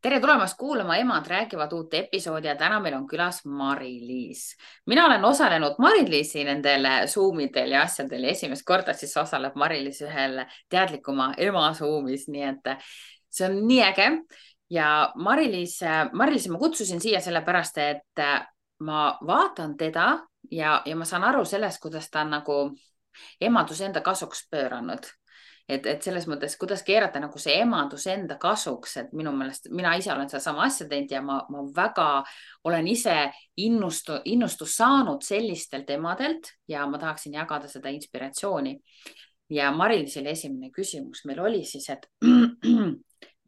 Tere tulemast kuulama Emad räägivad uut episoodi ja täna meil on külas Mari-Liis. Mina olen osalenud Mari-Liisi nendel Zoomidel ja asjadel ja esimest korda siis osaleb Mari-Liis ühel teadlikuma ema Zoomis, nii et see on nii äge. Ja Mari-Liisi ma kutsusin siia sellepärast, et ma vaatan teda ja ma saan aru sellest, kuidas ta on nagu emadus enda kasuks pööranud. Et selles mõttes, kuidas keerata nagu see emadus enda kasuks, et minu meelest mina ise olen sedasama asja teinud ja ma väga olen ise innustus saanud sellistelt emadelt ja ma tahaksin jagada seda inspiratsiooni. Ja Mari-Liisile esimene küsimus meil oli siis, et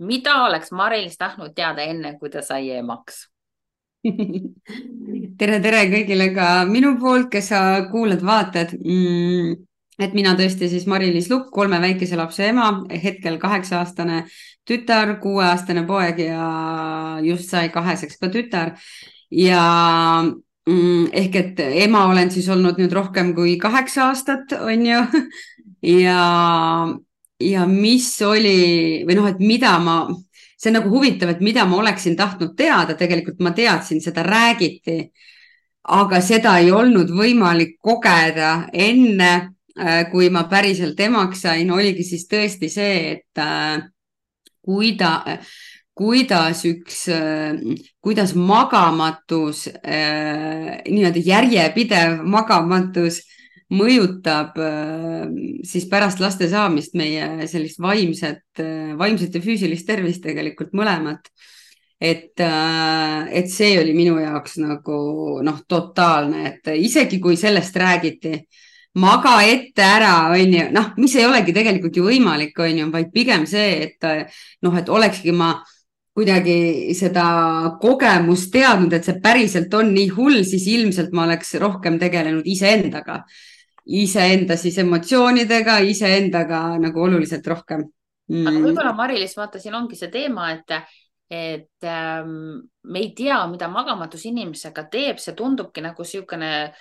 mida oleks Mari-Liis tahtnud teada enne, kui ta sai emaks? tere kõigile ka minu poolt, kes sa kuulad, vaatad. Et mina tõesti siis Mari-Liis Lukk, 3 väikese lapse ema, hetkel 8-aastane tütar, 6-aastane poeg ja just sai 2-seks ka tütar. Ja ehk et ema olen siis olnud nüüd rohkem kui 8 aastat, on ju. Ja mis oli või noh, et mida see on nagu huvitav, et mida ma oleksin tahtnud teada, tegelikult ma teadsin, seda räägiti, aga seda ei olnud võimalik kogeda enne, kui ma päriselt emaks sain, oligi siis tõesti see, et kuidas magamatus, niimoodi järjepidev magamatus mõjutab siis pärast laste saamist meie sellist vaimset ja füüsilist tervist tegelikult mõlemat. Et see oli minu jaoks nagu totaalne, et isegi kui sellest räägiti, maga ette ära, on ju, mis ei olegi tegelikult ju võimalik, on ju, vaid pigem see, et olekski ma kuidagi seda kogemust teadnud, et see päriselt on nii hull, siis ilmselt ma oleks rohkem tegelenud iseenda siis emotsioonidega, iseendaga nagu oluliselt rohkem. Aga võib-olla Mari-Liis, vaata, siin ongi see teema, et me ei tea, mida magamatus inimesega teeb, see tundubki nagu niisugune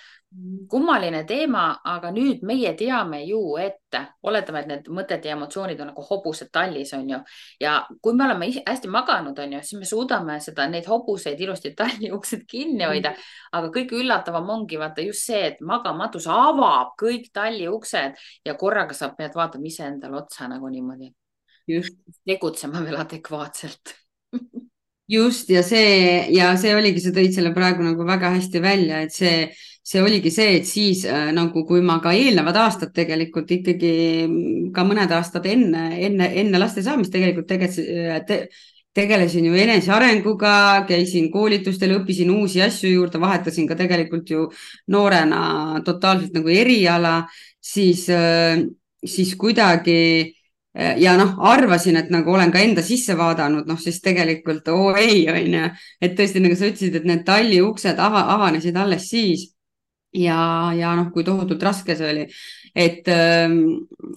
kummaline teema, aga nüüd meie teame ju ette, oletame, et need mõtted ja emotsioonid on nagu hobused tallis, on ju. Ja kui me oleme hästi maganud, on ju, siis me suudame neid hobuseid ilusti talli uksed kinni hoida. Aga kõige üllatavam ongi vaata just see, et magamatus avab kõik talli uksed ja korraga sa pead vaatama iseendale otsa nagu niimoodi. Just. Tegutsema veel adekvaatselt. Just, ja see oligi, sa tõid selle praegu nagu väga hästi välja, et see oligi see, et siis nagu kui ma ka eelnevad aastad tegelikult ikkagi ka mõned aastad enne laste saamist tegelikult tegelesin ju enesearenguga, käisin koolitustel, õppisin uusi asju juurde, vahetasin ka tegelikult ju noorena totaalselt nagu eriala, siis kuidagi ja arvasin, et nagu olen ka enda sisse vaadanud, siis tegelikult ei, on ju, et tõesti nagu sa ütlesid, et need talli uksed avanesid alles siis ja kui tohutult raske see oli, et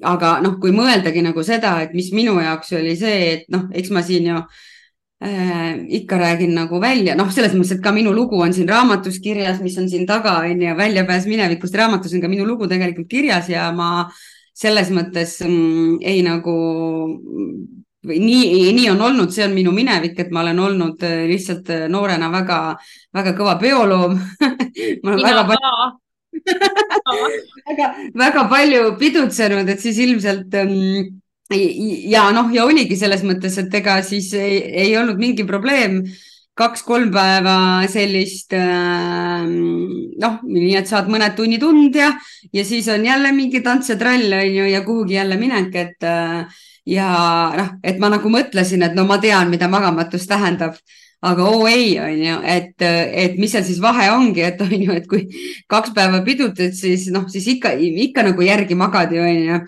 aga kui mõeldagi nagu seda, et mis minu jaoks oli see, et eks ma siin ju ikka räägin nagu välja, selles mõttes, et ka minu lugu on siin raamatus kirjas, mis on siin taga, on ju, Väljapääs minevikust raamatus on ka minu lugu tegelikult kirjas ja ma selles mõttes ei nagu nii on olnud, see on minu minevik, et ma olen olnud lihtsalt noorena väga, väga kõva peoloom. Ma olen väga palju pidutsenud, et siis ilmselt ja oligi selles mõttes, et ega siis ei olnud mingi probleem 2-3 päeva sellist nii, et saad mõned tunnid und ja siis on jälle mingi tants ja trall, on ju, ja kuhugi jälle minek, et et ma nagu mõtlesin, et ma tean, mida magamatus tähendab, aga ei, on ju, et mis seal siis vahe ongi, et on ju, et kui 2 päeva pidutad, siis ikka nagu järgi magad ju, on ju,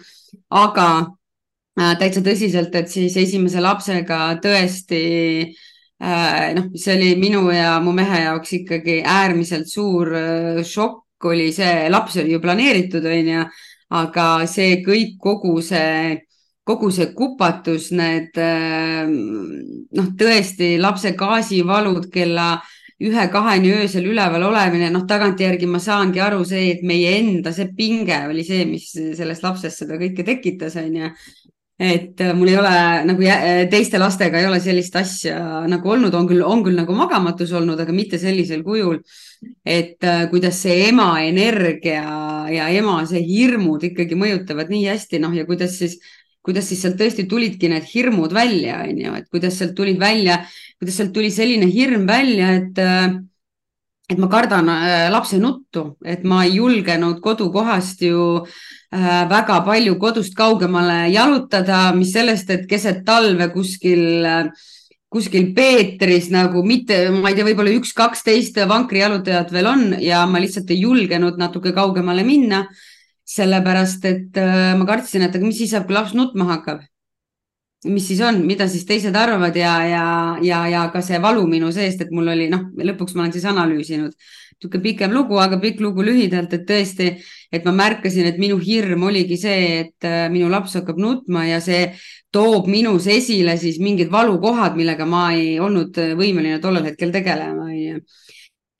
aga täitsa tõsiselt, et siis esimese lapsega tõesti see oli minu ja mu mehe jaoks ikkagi äärmiselt suur šokk oli see, laps oli ju planeeritud, on ju, aga see kõik, kogu see kupatus, need tõesti lapse gaasivalud kella 1-2 öösel üleval olemine, tagantjärgi ma saangi aru see, et meie enda see pinge oli see, mis sellest lapsest seda kõike tekitas, on ju. et mul ei ole nagu teiste lastega ei ole sellist asja nagu olnud, on küll nagu magamatus olnud, aga mitte sellisel kujul, et kuidas see ema energia ja ema see hirmud ikkagi mõjutavad nii hästi, noh ja kuidas siis sealt tõesti tulidki need hirmud välja, on ju, et kuidas sealt tuli selline hirm välja, et ma kardan lapse nuttu, et ma ei julgenud kodukohast ju väga palju kodust kaugemale jalutada, mis sellest, et keset talve kuskil Peetris nagu mitte, ma ei tea, võib-olla 1-12 vankrijalutajat veel on ja ma lihtsalt ei julgenud natuke kaugemale minna, sellepärast et ma kartsin, et aga mis siis saab, kui laps nutma hakkab. Mis siis on, mida siis teised arvavad ja ka see valu minu seest, et mul oli, noh, lõpuks ma olen siis analüüsinud natuke pikem lugu, aga pikk lugu lühidalt, et tõesti, et ma märkasin, et minu hirm oligi see, et minu laps hakkab nutma ja see toob minus esile siis mingid valukohad, millega ma ei olnud võimeline tollel hetkel tegelema.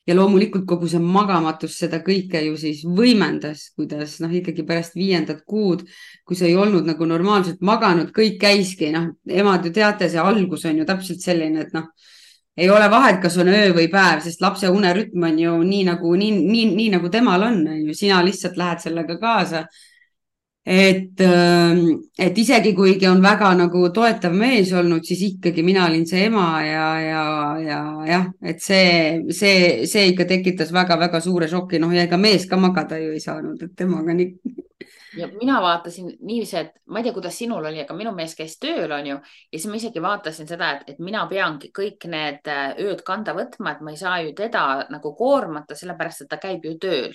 Ja loomulikult kogu see magamatus seda kõike ju siis võimendas, kuidas noh, ikkagi pärast 5. kuud, kui sa ei olnud nagu normaalselt maganud, kõik käiski, noh, emad ju teate, see algus on ju täpselt selline, et noh, ei ole vahet, kas on öö või päev, sest lapse unerütm on ju nii nagu temal on ju, sina lihtsalt lähed sellega kaasa. Et isegi kuigi on väga nagu toetav mees olnud, siis ikkagi mina olin see ema ja et see ikka tekitas väga-väga suure šoki, noh ja ega mees ka magada ju ei saanud, et temaga nii. Ja mina vaatasin niiviisi, et ma ei tea, kuidas sinul oli, aga minu mees käis tööl, on ju, ja siis ma isegi vaatasin seda, et mina peangi kõik need ööd kanda võtma, et ma ei saa ju teda nagu koormata, sellepärast, et ta käib ju tööl.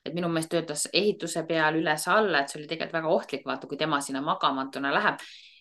Et minu mees töötas ehituse peal üles-alla, et see oli tegelikult väga ohtlik, vaata, kui tema sinna magamatuna läheb,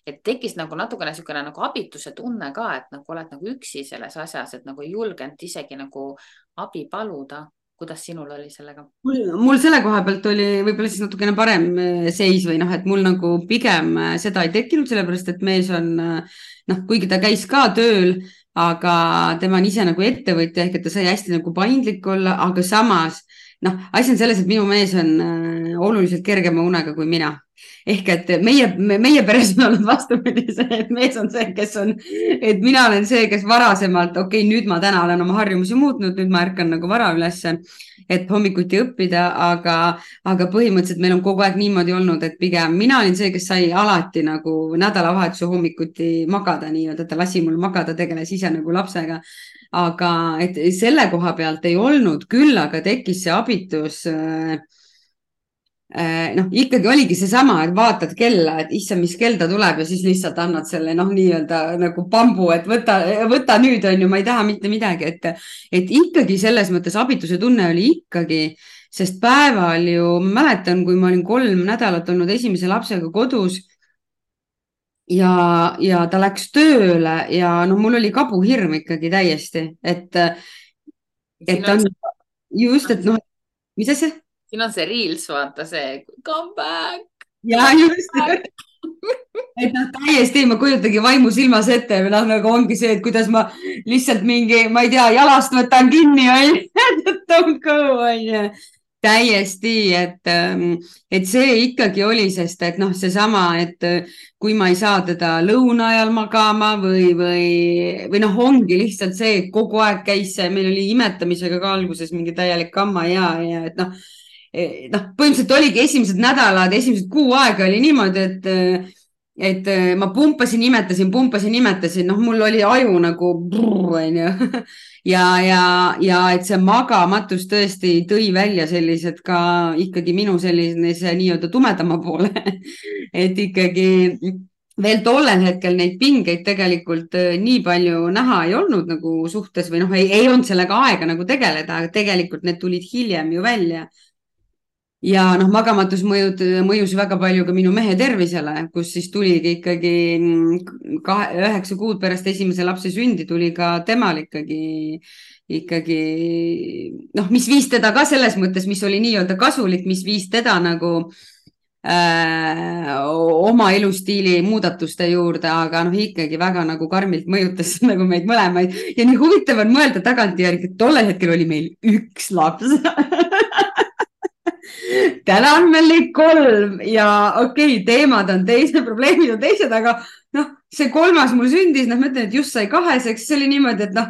et tekkis nagu natukene niisugune nagu abituse tunne ka, et nagu oled nagu üksi selles asjas, et nagu ei julgenud isegi nagu abi paluda. Kuidas sinul oli sellega? Mul selle koha pealt oli võib-olla siis natukene parem seis või noh, et mul nagu pigem seda ei tekkinud, sellepärast et mees on, noh, kuigi ta käis ka tööl, aga tema on ise nagu ettevõtja ehk et ta sai hästi nagu paindlik olla, aga samas noh, asi on selles, et minu mees on oluliselt kergema unega kui mina. Ehk et meie peres on olnud vastupidi see, et mees on see, et mina olen see, kes varasemalt, okei, nüüd ma täna olen oma harjumusi muutnud, nüüd ma ärkan nagu vara ülesse, et hommikuti õppida, aga põhimõtteliselt meil on kogu aeg niimoodi olnud, et pigem mina olin see, kes sai alati nagu nädalavahetuse hommikuti magada, nii-öelda ta lasi mul magada, tegeles ise nagu lapsega. Aga et selle koha pealt ei olnud, küll aga tekkis see abitus noh, ikkagi oligi seesama, et vaatad kella, et issa, mis kell ta tuleb ja siis lihtsalt annad selle noh, nii-öelda nagu pambu, et võta nüüd on ju, ma ei taha mitte midagi, et ikkagi selles mõttes abituse tunne oli ikkagi, sest päeval ju mäletan, kui ma olin 3 nädalat olnud esimese lapsega kodus ja ta läks tööle ja no mul oli kabuhirm ikkagi täiesti, et on just, et noh, mis asja? Siin on see Reels, vaata see come back. Ja just, et noh, täiesti ma kujutagi vaimu silmas ette, nagu ongi see, et kuidas ma lihtsalt mingi, ma ei tea, jalast võtan kinni, don't go, täiesti, et see ikkagi oli, sest et noh, seesama, et kui ma ei saa teda lõuna ajal magama või noh, ongi lihtsalt see, et kogu aeg käis see, meil oli imetamisega ka alguses mingi täielik kamma ja et noh, põhimõtteliselt oligi esimesed nädalad, esimesed kuu aega oli niimoodi, et ma pumpasin, imetasin, noh, mul oli aju nagu ja et see magamatus tõesti tõi välja sellised ka ikkagi minu selline see nii-öelda tumedama poole, et ikkagi veel tollel hetkel neid pingeid tegelikult nii palju näha ei olnud nagu suhtes või noh, ei olnud sellega aega nagu tegeleda, aga tegelikult need tulid hiljem ju välja. Ja noh, magamatus mõjus väga palju ka minu mehe tervisele, kus siis tuligi ikkagi 9 kuud pärast esimese lapse sündi tuli ka temal ikkagi noh, mis viis teda ka selles mõttes, mis oli nii-öelda kasulik, mis viis teda nagu oma elustiili muudatuste juurde, aga noh, ikkagi väga nagu karmilt mõjutas nagu meid mõlemaid ja nii huvitav on mõelda tagantjärgi, et tollel hetkel oli meil 1 laps täna on meil neid 3 ja okei, teemad on teised, probleemid on teised, aga noh, see 3. mul sündis, noh, ma ütlen, et just sai 2, eks see oli niimoodi, et noh,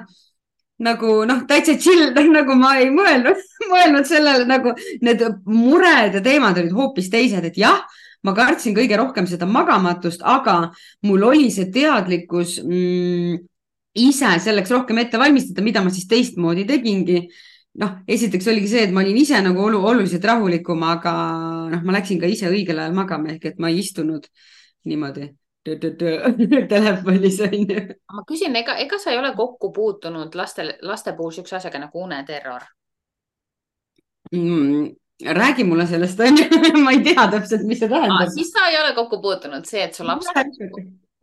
täitsa chill, nagu ma ei mõelnud sellele, nagu need mured ja teemad olid hoopis teised, et jah, ma kartsin kõige rohkem seda magamatust, aga mul oli see teadlikkus ise selleks rohkem ette valmistada, mida ma siis teistmoodi tegingi. Noh, esiteks oligi see, et ma olin ise nagu oluliselt rahulikum, aga noh, ma läksin ka ise õigel ajal magama, ehk et ma ei istunud niimoodi telefonis. Ma küsin, ega sa ei ole kokku puutunud laste puhul siukse asjaga nagu uneterror? Räägi mulle sellest, ma ei tea täpselt, mis see tähendab. Siis sa ei ole kokku puutunud see, et su laps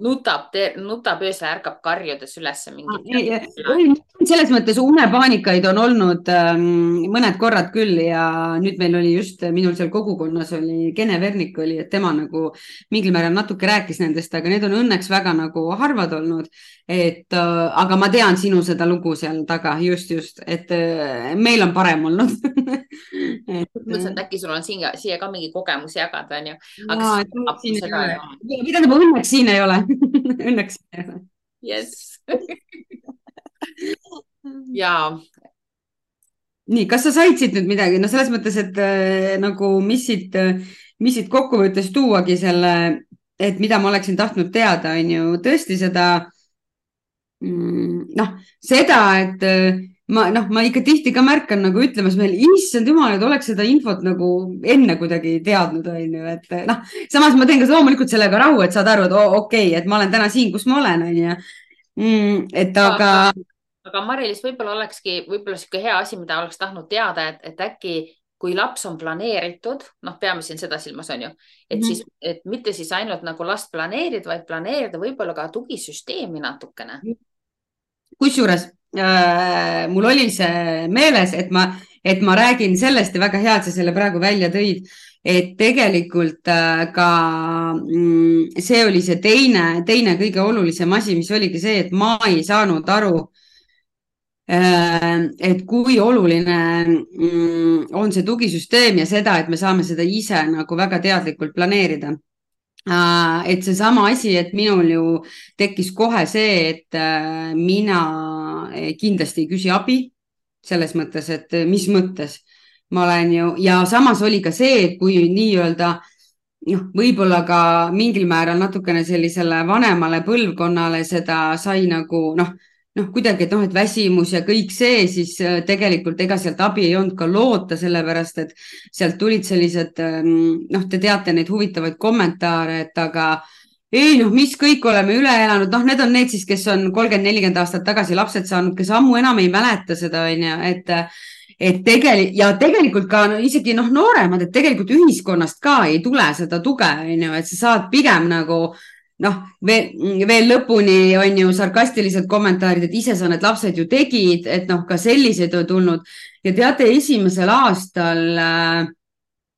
nutab öösel, ärkab karjudes üles mingi. Selles mõttes unepaanikaid on olnud mõned korrad küll ja nüüd meil oli just, minul seal kogukonnas oli Kene Vernik oli, et tema nagu mingil määral natuke rääkis nendest, aga need on õnneks väga nagu harvad olnud. Aga ma tean sinu seda lugu seal taga, just, et meil on parem olnud. Mõtlesin, et äkki sul on siia ka mingi kogemus jagada, on ju. Mida õnneks siin ei ole. Õnneks ei ole. Yes. Jaa. Nii, kas sa said siit nüüd midagi? No selles mõttes, et nagu mis siit kokkuvõttes tuuagi selle, et mida ma oleksin tahtnud teada, on ju tõesti seda, et ma ikka tihti ka märkan nagu ütlemas meil, issand jumal, et oleks seda infot nagu enne kuidagi teadnud, on ju, et samas ma teen ka loomulikult sellega rahu, et saad aru, et okei, et ma olen täna siin, kus ma olen, on ju. Aga Mari-Liis, võib-olla olekski siuke hea asi, mida oleks tahtnud teada, et äkki kui laps on planeeritud, peame siin seda silmas, on ju, et mitte siis ainult nagu last planeerida, vaid planeerida võib-olla ka tugisüsteemi natukene. Kusjuures mul oli see meeles, et ma räägin sellest ja väga hea, et sa selle praegu välja tõid, et tegelikult ka see oli see teine kõige olulisem asi, mis oligi see, et ma ei saanud aru, et kui oluline on see tugisüsteem ja seda, et me saame seda ise nagu väga teadlikult planeerida. Et see sama asi, et minul ju tekkis kohe see, et mina kindlasti ei küsi abi selles mõttes, et mis mõttes ma olen ju ja samas oli ka see, et kui nii-öelda võib-olla ka mingil määral natukene sellisele vanemale põlvkonnale seda sai nagu kuidagi, et väsimus ja kõik see, siis tegelikult ega sealt abi ei olnud ka loota, sellepärast, et sealt tulid sellised, te teate neid huvitavaid kommentaare, et aga ei, mis kõik oleme üle elanud, need on need siis, kes on 30-40 aastat tagasi lapsed saanud, kes ammu enam ei mäleta seda, on ju, et tegelikult ka isegi nooremad, et tegelikult ühiskonnast ka ei tule seda tuge, on ju, et sa saad pigem nagu veel lõpuni on ju sarkastilised kommentaarid, et ise sa need lapsed ju tegid, et ka selliseid on tulnud ja teate, esimesel aastal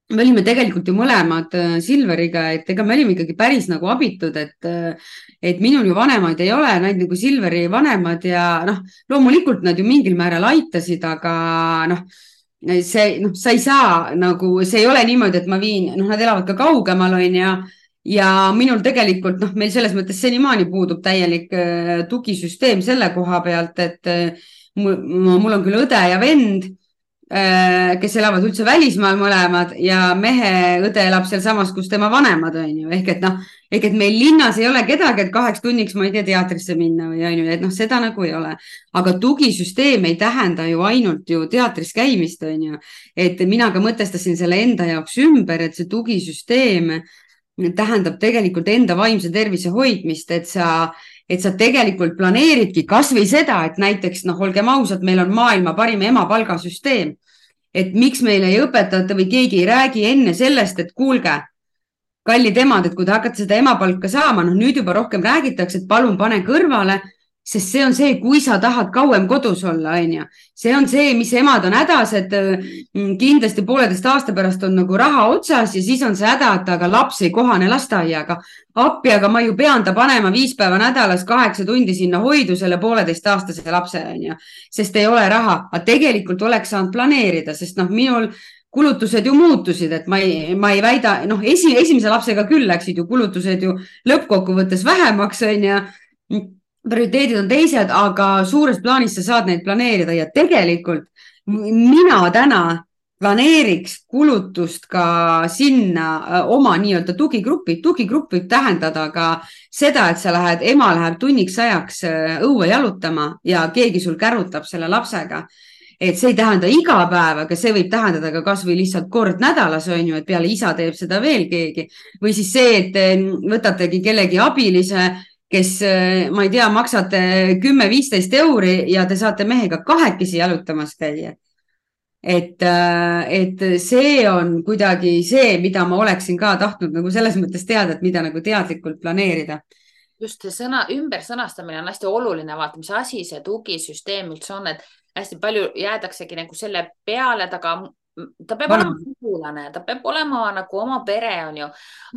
me olime tegelikult ju mõlemad Silveriga, et ega me olime ikkagi päris nagu abitud, et minul ju vanemaid ei ole, nad nagu Silveri vanemad ja loomulikult nad ju mingil määral aitasid, aga sa ei saa nagu, see ei ole niimoodi, et ma viin, nad elavad ka kaugemal, on ja minul tegelikult, meil selles mõttes senimaani puudub täielik tugisüsteem selle koha pealt, et mul on küll õde ja vend, kes elavad üldse välismaal mõlemad ja mehe õde elab seal samas, kus tema vanemad on ju, ehk et meil linnas ei ole kedagi, et 2 tunniks ma ei tea teatrisse minna või on ju, et seda nagu ei ole, aga tugisüsteem ei tähenda ju ainult ju teatris käimist on ju, et mina ka mõtestasin selle enda jaoks ümber, et see tugisüsteem tähendab tegelikult enda vaimse tervise hoidmist, et sa tegelikult planeeridki kas või seda, et näiteks, olgem ausad, meil on maailma parim emapalgasüsteem, et miks meile ei õpetata või keegi ei räägi enne sellest, et kuulge, kallid emad, et kui te hakkate seda emapalka saama, nüüd juba rohkem räägitakse, et palun pane kõrvale, sest see on see, kui sa tahad kauem kodus olla, on ju. See on see, mis emad on hädas, et kindlasti 1,5 aasta pärast on nagu raha otsas ja siis on see häda, et aga laps ei kohane lasteaiaga. Appi, aga ma ju pean ta panema 5 päeva nädalas 8 tundi sinna hoidu selle 1,5-aastase lapse, on ju. Sest ei ole raha, aga tegelikult oleks saanud planeerida, sest minul kulutused ju muutusid, et ma ei väida, noh, esimese lapsega küll läksid ju kulutused ju lõppkokkuvõttes vähemaks, on ju. Prioriteedid on teised, aga suures plaanis sa saad neid planeerida ja tegelikult mina täna planeeriks kulutust ka sinna oma nii-öelda tugigruppi. Tugigrupp võib tähendada ka seda, et ema läheb tunniks ajaks õue jalutama ja keegi sul kärutab selle lapsega. Et see ei tähenda iga päev, aga see võib tähendada ka kas või lihtsalt kord nädalas, on ju, et peale isa teeb seda veel keegi. Või siis see, et võtategi kellegi abilise, kes, ma ei tea, maksate 10-15 euri ja te saate mehega kahekesi jalutamas käia. Et see on kuidagi see, mida ma oleksin ka tahtnud nagu selles mõttes teada, et mida nagu teadlikult planeerida. Just see ümbersõnastamine on hästi oluline, vaata, mis asi see tugisüsteem üldse on, et hästi palju jäädaksegi nagu selle peale, ta peab olema sugulane, ta peab olema nagu oma pere, on ju,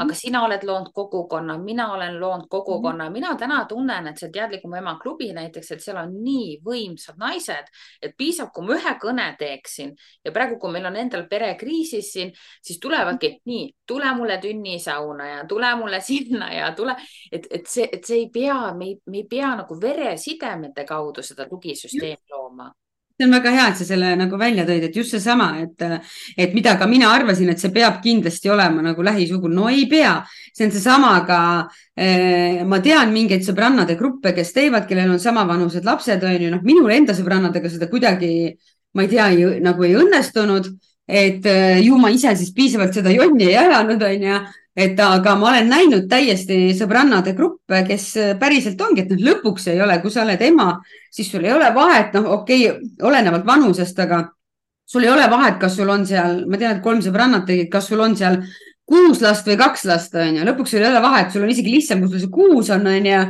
aga sina oled loonud kogukonna, mina olen loonud kogukonna, mina täna tunnen, et see teadlikum ema klubi näiteks, et seal on nii võimsad naised, et piisab, kui ma ühe kõne teeksin ja praegu, kui meil on endal perekriisis siin, siis tulevadki nii, tule mulle tünnisauna ja tule mulle sinna ja tule, et see ei pea, me ei pea nagu veresidemete kaudu seda tugisüsteemi looma. See on väga hea, et sa selle nagu välja tõid, et just seesama, et mida ka mina arvasin, et see peab kindlasti olema nagu lähisugul. No ei pea. See on seesama, aga ma tean mingeid sõbrannade gruppe, kes teevad, kellel on samavanused lapsed, on ju, noh, minul enda sõbrannadega seda kuidagi, ma ei tea, nagu ei õnnestunud, et ju ma ise siis piisavalt seda jonni ei ajanud, on ju. Aga ma olen näinud täiesti sõbrannade gruppe, kes päriselt ongi, et lõpuks ei ole, kui sa oled ema, siis sul ei ole vahet, okei, olenevalt vanusest, aga sul ei ole vahet, kas sul on seal, ma tean, et 3 sõbrannat tegid, kas sul on seal 6 last või 2 last, on ju. Lõpuks sul ei ole vahet, sul on isegi lihtsam, kui sul see 6 on ju,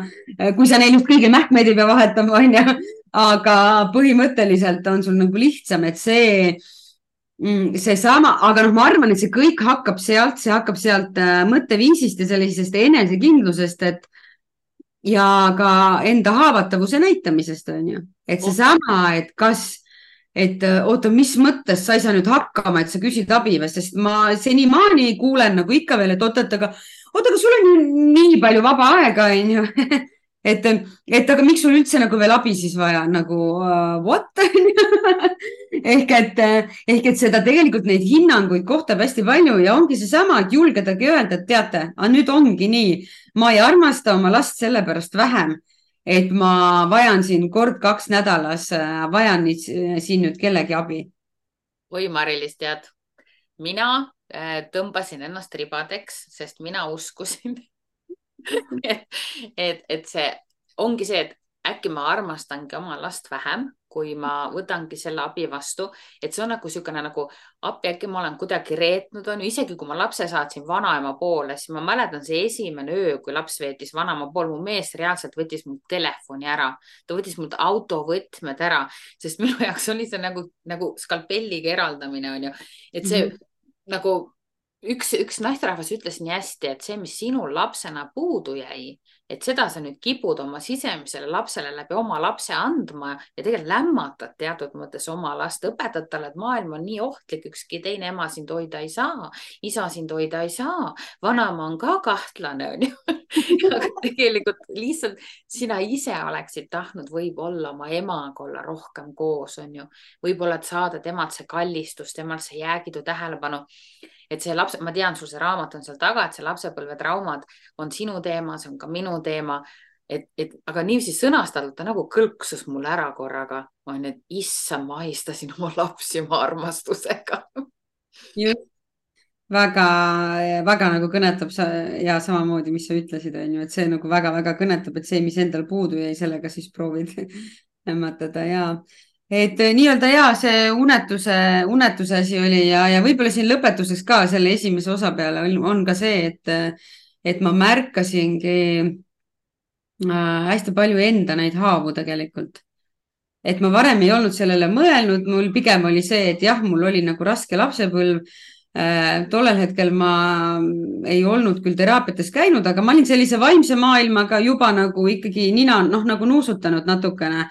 kui sa neil just kõige mähkmeid ei pea vahetama, on ju. Aga põhimõtteliselt on sul nagu lihtsam, et see sama, aga ma arvan, et see kõik hakkab sealt mõtteviisist ja sellisest enesekindlusest, ja ka enda haavatavuse näitamisest, on ju. Et seesama, et oota, mis mõttes sa ei saa nüüd hakkama, et sa küsid abi või, sest ma senimaani kuulen nagu ikka veel, et oota, aga sul on ju nii palju vaba aega, on ju. Aga miks sul üldse nagu veel abi siis vaja, nagu what? ehk et seda tegelikult neid hinnanguid kohtab hästi palju ja ongi seesama, et julgedagi öelda, et teate, nüüd ongi nii, ma ei armasta oma last sellepärast vähem, et ma vajan siin 1-2 nädalas, vajan siin nüüd kellegi abi. Oi, Mari-Liis, tead, mina tõmbasin ennast ribadeks, sest mina uskusin et see ongi see, et äkki ma armastangi oma last vähem, kui ma võtangi selle abi vastu, et see on nagu niisugune nagu appi, äkki ma olen kuidagi reetnud, on ju, isegi kui ma lapse saatsin vanaema poole, siis ma mäletan see esimene öö, kui laps veetis vanaema pool, mu mees reaalselt võttis mul telefoni ära, ta võttis mult autovõtmed ära, sest minu jaoks oli see nagu skalpelliga eraldamine, on ju, et see nagu üks naisterahvas ütles nii hästi, et see, mis sinul lapsena puudu jäi, et seda sa nüüd kipud oma sisemisele lapsele läbi oma lapse andma ja tegelikult lämmatad teatud mõttes oma last, õpetad talle, et maailm on nii ohtlik, ükski teine ema sind hoida ei saa, isa sind hoida ei saa, vanaema on ka kahtlane, on ju. Aga tegelikult lihtsalt sina ise oleksid tahtnud võib-olla oma emaga olla rohkem koos, on ju. Võib-olla, et saada temalt see kallistus, temalt see jäägidu tähelepanu. Et see laps, ma tean, sul see raamat on seal taga, et see lapsepõlvetraumad on sinu teema, see on ka minu teema, aga niiviisi sõnastatult ta nagu kõlksus mulle ära korraga. Ma olen, et issa, ma ahistasin oma lapsi oma armastusega. Just. Väga nagu kõnetab ja samamoodi, mis sa ütlesid, on ju, et see nagu väga kõnetab, et see, mis endal puudu jäi, sellega siis proovid lämmatada ja et nii-öelda see unetuse asi oli ja võib-olla siin lõpetuseks ka selle esimese osa peale on ka see, et ma märkasingi hästi palju enda neid haavu tegelikult. Et ma varem ei olnud sellele mõelnud, mul pigem oli see, et jah, mul oli nagu raske lapsepõlv. Tollel hetkel ma ei olnud küll teraapiates käinud, aga ma olin sellise vaimse maailmaga juba nagu ikkagi nina nagu nuusutanud natukene.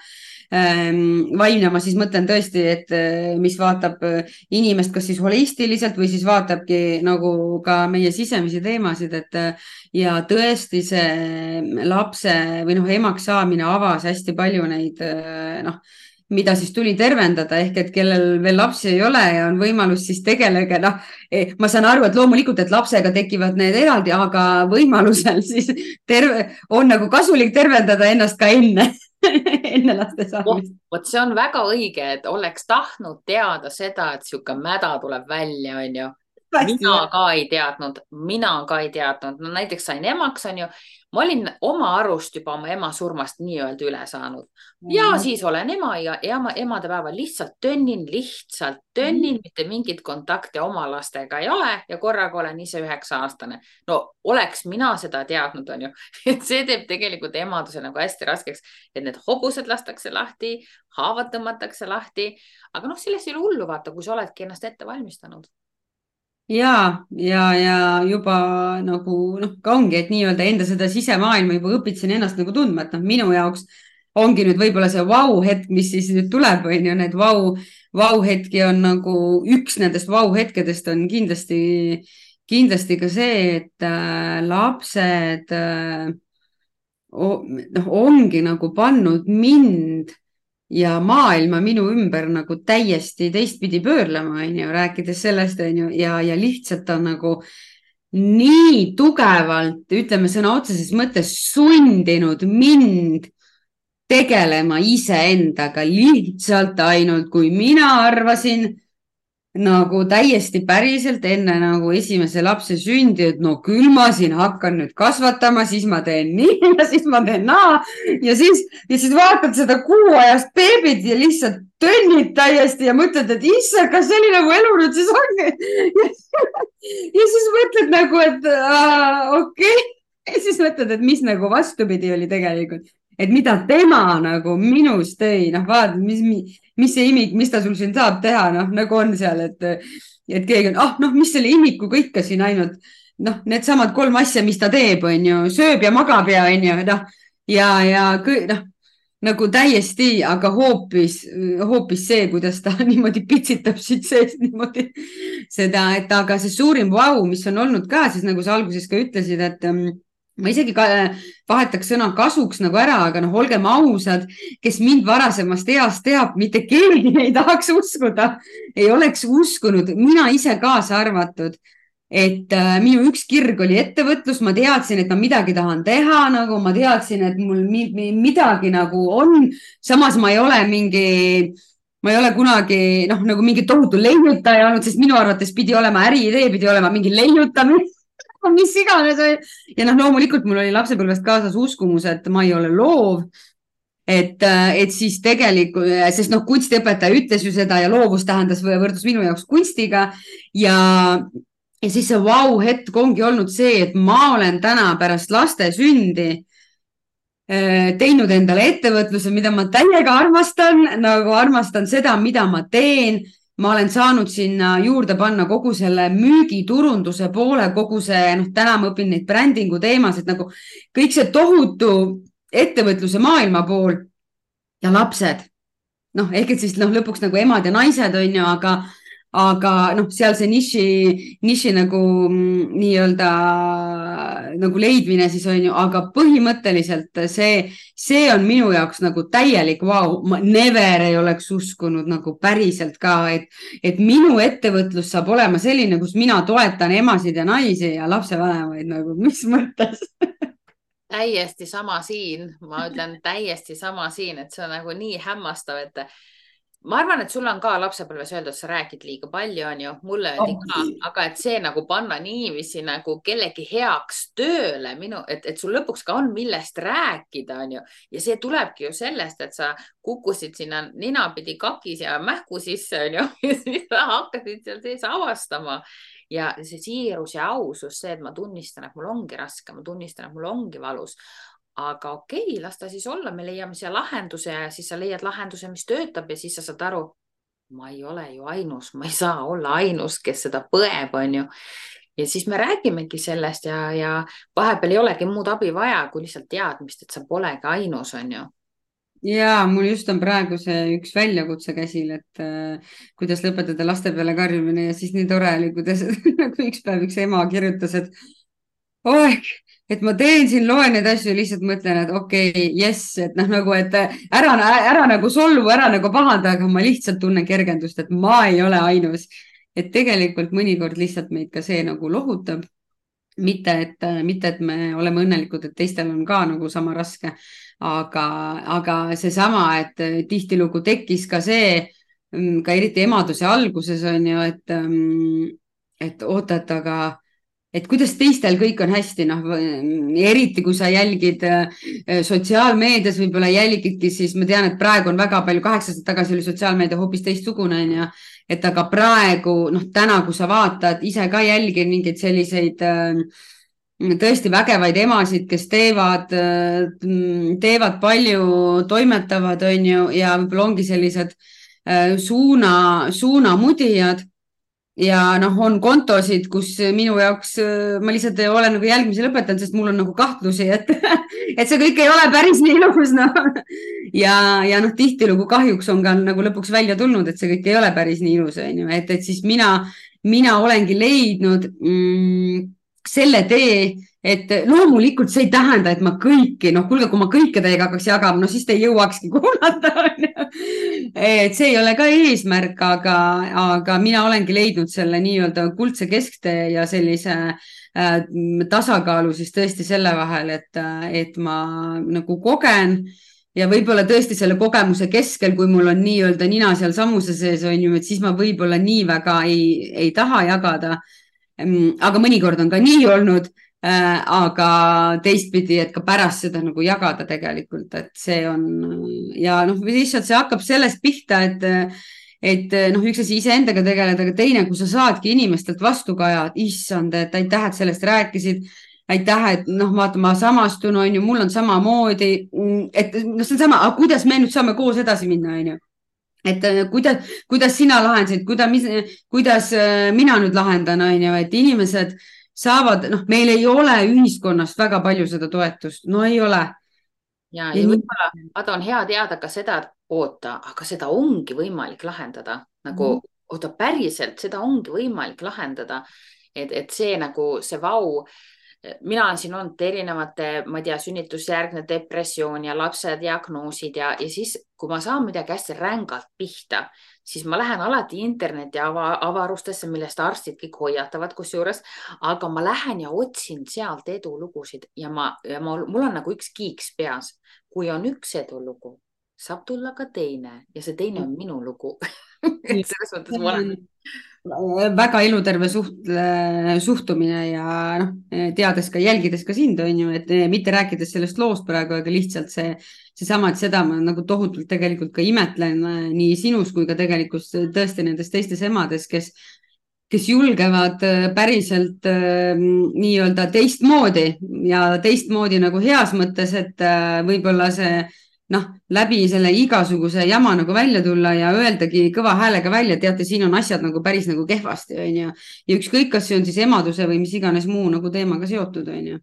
vaimne, ma siis mõtlen tõesti, et mis vaatab inimest kas siis holistiliselt või siis vaatabki nagu ka meie sisemisi teemasid, et ja tõesti see lapse või noh, emaks saamine avas hästi palju neid noh, mida siis tuli tervendada, ehk et kellel veel lapsi ei ole ja on võimalus, siis tegelege, noh, ma saan aru, et loomulikult, et lapsega tekivad need eraldi, aga võimalusel siis on nagu kasulik tervendada ennast ka enne enne laste saamist. Vot see on väga õige, et oleks tahtnud teada seda, et sihuke mäda tuleb välja, onju. Mina ka ei teadnud. No näiteks sain emaks, onju. Ma olin oma arust juba oma ema surmast nii-öelda üle saanud. Ja siis olen ema ja emadepäeval lihtsalt tönnin, mitte mingit kontakte oma lastega ei ole ja korraga olen ise 9-aastane. No oleks mina seda teadnud, onju. Et see teeb tegelikult emaduse nagu hästi raskeks, et need hobused lastakse lahti, haavad tõmmatakse lahti. Aga noh, sellest ei ole hullu vaata, kui sa oledki ennast ette valmistanud. ja juba nagu noh, ka ongi, et nii-öelda enda seda sisemaailma juba õpitasin ennast nagu tundma, et noh, minu jaoks ongi nüüd võib-olla see vau-hetk, mis siis nüüd tuleb, on ju, need vau-hetki on nagu üks nendest vau-hetkedest on kindlasti ka see, et lapsed noh, ongi nagu pannud mind ja maailma minu ümber nagu täiesti teistpidi pöörlema, on ju, rääkides sellest, on ju, ja lihtsalt on nagu nii tugevalt, ütleme sõna otseses mõttes sundinud mind tegelema iseendaga lihtsalt ainult, kui mina arvasin nagu täiesti päriselt enne nagu esimese lapse sündi, et no küll ma siin hakkan nüüd kasvatama, siis ma teen nii ja siis ma teen naa ja siis vaatad seda kuuajast beebit ja lihtsalt tönnid täiesti ja mõtled, et issand, kas selline nagu elu nüüd siis ongi. Ja siis mõtled nagu, et okei. Ja siis mõtled, et mis nagu vastupidi oli tegelikult. Et mida tema nagu minust tõi, noh vaata, mis see imik, mis ta sul siin saab teha, noh nagu on seal, et keegi on, noh, mis selle imikuga ikka siin ainult, noh, need samad 3 asja, mis ta teeb, on ju, sööb ja magab ja on ju, noh, ja noh, nagu täiesti, aga hoopis see, kuidas ta niimoodi pitsitab siit sees niimoodi seda, et aga see suurim vau, mis on olnud ka, siis nagu sa alguses ka ütlesid, et ma isegi vahetaks sõna kasuks nagu ära, aga noh, olgem ausad, kes mind varasemast east teab, mitte keegi ei tahaks uskuda, ei oleks uskunud, mina ise kaasa arvatud, et minu üks kirg oli ettevõtlus, ma teadsin, et ma midagi tahan teha, nagu ma teadsin, et mul midagi nagu on, samas ma ei ole kunagi noh, nagu mingi tohutu leiutaja olnud, sest minu arvates pidi olema äriidee, pidi olema mingi leiutamine. Mis iganes. Ja noh, loomulikult mul oli lapsepõlvest kaasas uskumus, et ma ei ole loov, et siis tegelikult, sest noh, kunstiõpetaja ütles ju seda ja loovus tähendas võrdus minu jaoks kunstiga ja siis see vau-hetk ongi olnud see, et ma olen täna pärast laste sündi teinud endale ettevõtluse, mida ma täiega armastan, nagu armastan seda, mida ma teen. Ma olen saanud sinna juurde panna kogu selle müügiturunduse poole, kogu see, noh, täna ma õpin neid brändingu teemasid, nagu kõik see tohutu ettevõtluse maailma pool ja lapsed. Noh, ehk et siis noh, lõpuks nagu emad ja naised on ju, aga noh, seal see niši nagu nii-öelda nagu leidmine siis on ju, aga põhimõtteliselt see on minu jaoks nagu täielik vau. Ma never ei oleks uskunud nagu päriselt ka, et minu ettevõtlus saab olema selline, kus mina toetan emasid ja naisi ja lapsevanemaid nagu, mis mõttes? Täiesti sama siin, ma ütlen täiesti sama siin, et see on nagu nii hämmastav, et ma arvan, et sul on ka lapsepõlves öeldud, sa räägid liiga palju, on ju, mulle öeldi ka, aga et see nagu panna niiviisi nagu kellegi heaks tööle, et sul lõpuks ka on millest rääkida, on ju. Ja see tulebki ju sellest, et sa kukkusid sinna ninapidi kakis ja mähku sisse, on ju, ja siis sa hakkasid seal sees avastama. Ja see siirus ja ausus, see, et ma tunnistan, et mul ongi raske, ma tunnistan, et mul ongi valus. Aga okei, las ta siis olla, me leiame siia lahenduse ja siis sa leiad lahenduse, mis töötab ja siis sa saad aru, ma ei ole ju ainus, ma ei saa olla ainus, kes seda põeb, on ju. Ja siis me räägimegi sellest ja vahepeal ei olegi muud abi vaja, kui lihtsalt teadmist, et sa polegi ainus, on ju. ja mul just on praegu see üks väljakutse käsil, et kuidas lõpetada laste peale karjumine ja siis nii tore oli, kuidas nagu üks päev üks ema kirjutas, et oeg, et ma teen siin, loen neid asju ja lihtsalt mõtlen, et okei, jess, et noh, nagu, et ära nagu solvu, ära nagu pahanda, aga ma lihtsalt tunnen kergendust, et ma ei ole ainus. Et tegelikult mõnikord lihtsalt meid ka see nagu lohutab. mitte, et me oleme õnnelikud, et teistel on ka nagu sama raske, aga seesama, et tihtilugu tekkis ka see, ka eriti emaduse alguses on ju, et oota, et kuidas teistel kõik on hästi, noh, eriti kui sa jälgid sotsiaalmeedias, võib-olla jälgidki, siis ma tean, et praegu on väga palju, 8 aastat tagasi oli sotsiaalmeedia hoopis teistsugune, on ju, et aga praegu, noh, täna, kui sa vaatad, ise ka jälgin mingeid selliseid tõesti vägevaid emasid, kes teevad palju, toimetavad, on ju, ja võib-olla ongi sellised suunamudijad ja noh, on kontosid, kus minu jaoks ma lihtsalt olen nagu jälgimise lõpetanud, sest mul on nagu kahtlusi, et, et see kõik ei ole päris nii ilus, noh. ja noh, tihtilugu kahjuks on ka nagu lõpuks välja tulnud, et see kõik ei ole päris nii ilus, on ju, et siis mina olengi leidnud selle tee, et loomulikult see ei tähenda, et ma kõiki, noh, kuulge, kui ma kõike teiega hakkaks jagama, no siis te ei jõuakski kuulata, on ju. Et see ei ole ka eesmärk, aga mina olengi leidnud selle nii-öelda kuldse kesktee ja sellise tasakaalu siis tõesti selle vahel, et ma nagu kogen ja võib-olla tõesti selle kogemuse keskel, kui mul on nii-öelda nina seal sammuse sees, on ju, et siis ma võib-olla nii väga ei taha jagada. Aga mõnikord on ka nii olnud, aga teistpidi, et ka pärast seda nagu jagada tegelikult, et see on ja noh, lihtsalt see hakkab sellest pihta, et noh, üks asi iseendaga tegeleda, aga teine, kui sa saadki inimestelt vastukaja, issand, et aitäh, et sellest rääkisid, aitäh, et noh, vaata, ma samastun, on ju, mul on samamoodi, et noh, see on sama, aga kuidas me nüüd saame koos edasi minna, on ju. Et kuidas sina lahendasid, kuidas mina nüüd lahendan, on ju, et inimesed saavad, noh, meil ei ole ühiskonnast väga palju seda toetust, no ei ole. ja võib-olla vaata, on hea teada ka seda, et oota, aga seda ongi võimalik lahendada nagu, oota, päriselt seda ongi võimalik lahendada, et see nagu see vau. Mina olen siin olnud erinevate, ma ei tea, sünnitusjärgne depressioon ja lapse diagnoosid ja siis, kui ma saan midagi hästi rängalt pihta, siis ma lähen alati interneti avarustesse, millest arstid kõik hoiatavad kusjuures, aga ma lähen ja otsin sealt edulugusid ja mul on nagu üks kiiks peas. Kui on üks edulugu, saab tulla ka teine ja see teine on minu lugu. Selles mõttes ma olen väga eluterve suhtumine ja noh, teades ka, jälgides ka sind, on ju, et mitte rääkides sellest loost praegu, aga lihtsalt seesama, et seda ma nagu tohutult tegelikult ka imetlen nii sinus kui ka tegelikult tõesti nendes teistes emades, kes julgevad päriselt nii-öelda teistmoodi ja teistmoodi nagu heas mõttes, et võib-olla see noh, läbi selle igasuguse jama nagu välja tulla ja öeldagi kõva häälega välja, teate, siin on asjad nagu päris nagu kehvasti, on ju. Ja ükskõik, kas see on siis emaduse või mis iganes muu nagu teemaga seotud, on ju.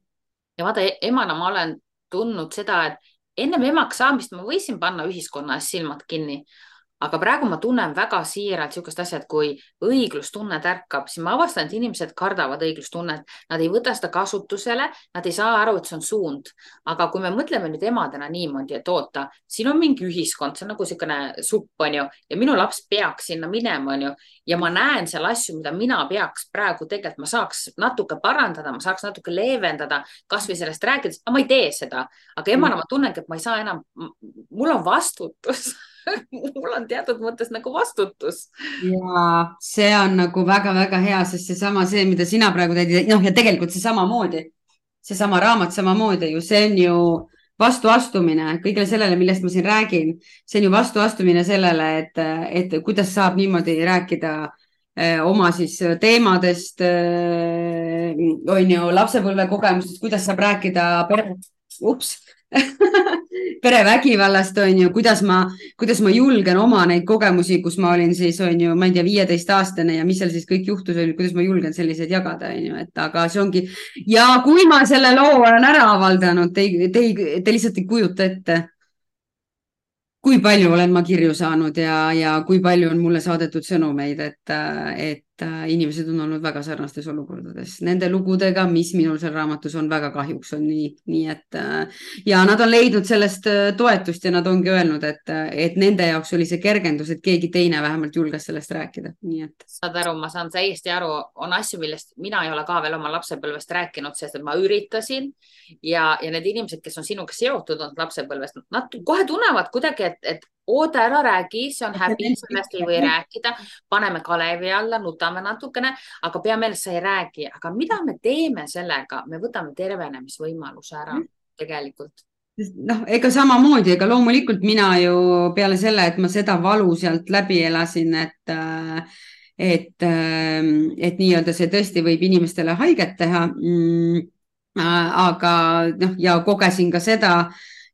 Ja vaata, emana ma olen tundnud seda, et ennem emaks saamist ma võisin panna ühiskonna ees silmad kinni. Aga praegu ma tunnen väga siiralt niisugust asja, et kui õiglustunne tärkab, siis ma avastan, et inimesed kardavad õiglustunnet. Nad ei võta seda kasutusele, nad ei saa aru, et see on suund. Aga kui me mõtleme nüüd emadena niimoodi, et oota, siin on mingi ühiskond, see on nagu niisugune supp, on ju, ja minu laps peaks sinna minema, on ju, ja ma näen seal asju, mida mina peaks praegu tegelikult, ma saaks natuke parandada, ma saaks natuke leevendada, kas või sellest rääkides, aga ma ei tee seda. Aga emana ma tunnengi, et ma ei saa enam, mul on vastutus. Mul on teatud mõttes nagu vastutus. Ja see on nagu väga-väga hea, sest see, mida sina praegu teed, noh, ja tegelikult seesama raamat samamoodi ju, see on ju vastuastumine kõigele sellele, millest ma siin räägin. See on ju vastuastumine sellele, et kuidas saab niimoodi rääkida oma siis teemadest, on ju, lapsepõlve kogemustest, kuidas saab rääkida perevägivallast, on ju, kuidas ma julgen oma neid kogemusi, kus ma olin siis, on ju, ma ei tea, 15-aastane ja mis seal siis kõik juhtus, kuidas ma julgen selliseid jagada, on ju, et aga see ongi ja kui ma selle loo olen ära avaldanud, te lihtsalt ei kujuta ette. kui palju olen ma kirju saanud ja kui palju on mulle saadetud sõnumeid, et inimesed on olnud väga sarnastes olukordades nende lugudega, mis minul seal raamatus on, väga kahjuks on nii et ja nad on leidnud sellest toetust ja nad ongi öelnud, et nende jaoks oli see kergendus, et keegi teine vähemalt julges sellest rääkida, nii et. saad aru, ma saan täiesti aru, on asju, millest mina ei ole ka veel oma lapsepõlvest rääkinud, sest et ma üritasin ja need inimesed, kes on sinuga seotud olnud lapsepõlvest, nad kohe tunnevad kuidagi, et oota, ära räägi, see on häbi, sellest ei või rääkida, paneme kalevi alla, nutame natukene, aga pea meeles, sa ei räägi, aga mida me teeme sellega, me võtame tervenemisvõimaluse ära tegelikult. Noh, ega samamoodi, ega loomulikult mina ju peale selle, et ma seda valu sealt läbi elasin, et nii-öelda see tõesti võib inimestele haiget teha. Aga noh, ja kogesin ka seda,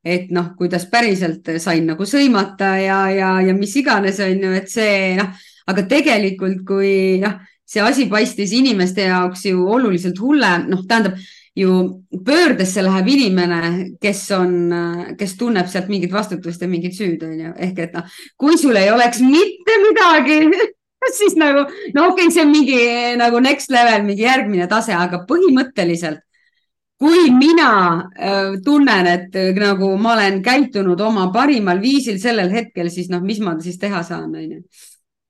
et noh, kuidas päriselt sain nagu sõimata ja mis iganes on ju, et see noh, aga tegelikult kui noh, see asi paistis inimeste jaoks ju oluliselt hullem, noh, tähendab ju pöördesse läheb inimene, kes tunneb sealt mingit vastutust ja mingit süüd, on ju. Ehk et noh, kui sul ei oleks mitte midagi, siis nagu, no okei, see on mingi nagu next level, mingi järgmine tase, aga põhimõtteliselt kui mina tunnen, et nagu ma olen käitunud oma parimal viisil sellel hetkel, siis noh, mis ma siis teha saan, on ju.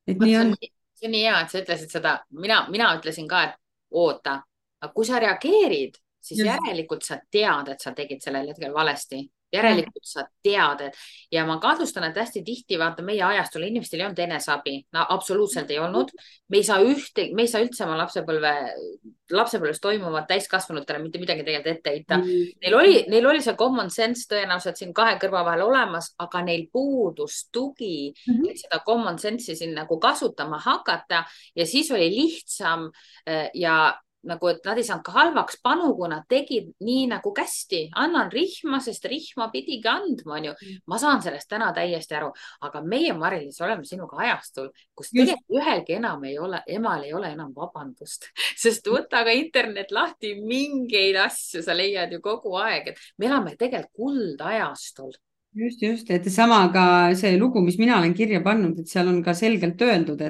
Et nii on. See on nii hea, et sa ütlesid seda. Mina ütlesin ka, et oota, aga kui sa reageerid, siis järelikult sa tead, et sa tegid sellel hetkel valesti. Järelikult sa tead, ja ma kahtlustan, et hästi tihti vaata meie ajastul inimestel ei olnud eneseabi. No, absoluutselt ei olnud. Me ei saa üldse oma lapsepõlves toimuvat täiskasvanutele mitte midagi tegelikult ette heita. Neil oli see common sense tõenäoliselt siin kahe kõrva vahel olemas, aga neil puudus tugi, et seda common sense'i siin nagu kasutama hakata ja siis oli lihtsam ja nagu, et nad ei saanud ka halvaks panu, kui nad tegid nii nagu kästi. Annan rihma, sest rihma pidigi andma, on ju. Ma saan sellest täna täiesti aru, aga meie Mari-Liis oleme sinuga ajastul, kus tegelikult ühelgi emal ei ole enam vabandust, sest võta ka internet lahti, mingeid asju sa leiad ju kogu aeg, et me elame tegelikult kuldajastul. Just, et sama ka see lugu, mis mina olen kirja pannud, et seal on ka selgelt öeldud,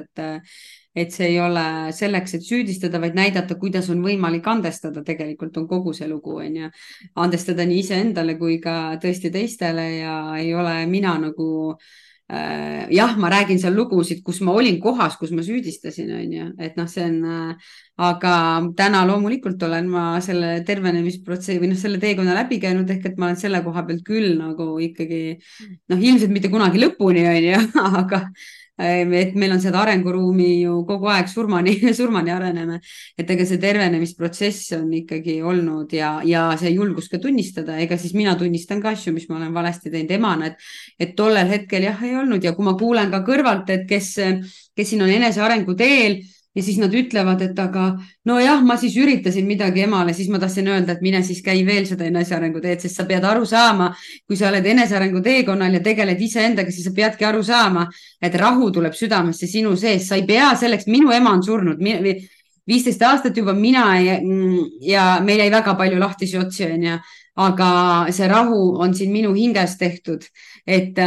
et see ei ole selleks, et süüdistada, vaid näidata, kuidas on võimalik andestada. Tegelikult on kogu see lugu, on ju. Andestada nii iseendale kui ka tõesti teistele ja ei ole mina nagu jah, ma räägin seal lugusid, kus ma olin kohas, kus ma süüdistasin, on ju, et noh, see on, aga täna loomulikult olen ma selle tervenemisprotsessi või noh, selle teekonna läbi käinud, ehk et ma olen selle koha pealt küll nagu ikkagi noh, ilmselt mitte kunagi lõpuni, on ju, aga et meil on seda arenguruumi ju kogu aeg surmani areneme, et ega see tervenemisprotsess on ikkagi olnud ja see julgus ka tunnistada, ega siis mina tunnistan ka asju, mis ma olen valesti teinud emana, et tollel hetkel jah, ei olnud ja kui ma kuulen ka kõrvalt, et kes siin on enesearengu teel ja siis nad ütlevad, et aga nojah, ma siis üritasin midagi emale, siis ma tahtsin öelda, et mine siis käi veel seda enesearengu teed, sest sa pead aru saama, kui sa oled enesearengu teekonnal ja tegeled iseendaga, siis sa peadki aru saama, et rahu tuleb südamesse sinu sees, sa ei pea selleks, minu ema on surnud 15 aastat juba, mina ja meil jäi väga palju lahtisi otsi, on ju, aga see rahu on siin minu hinges tehtud, et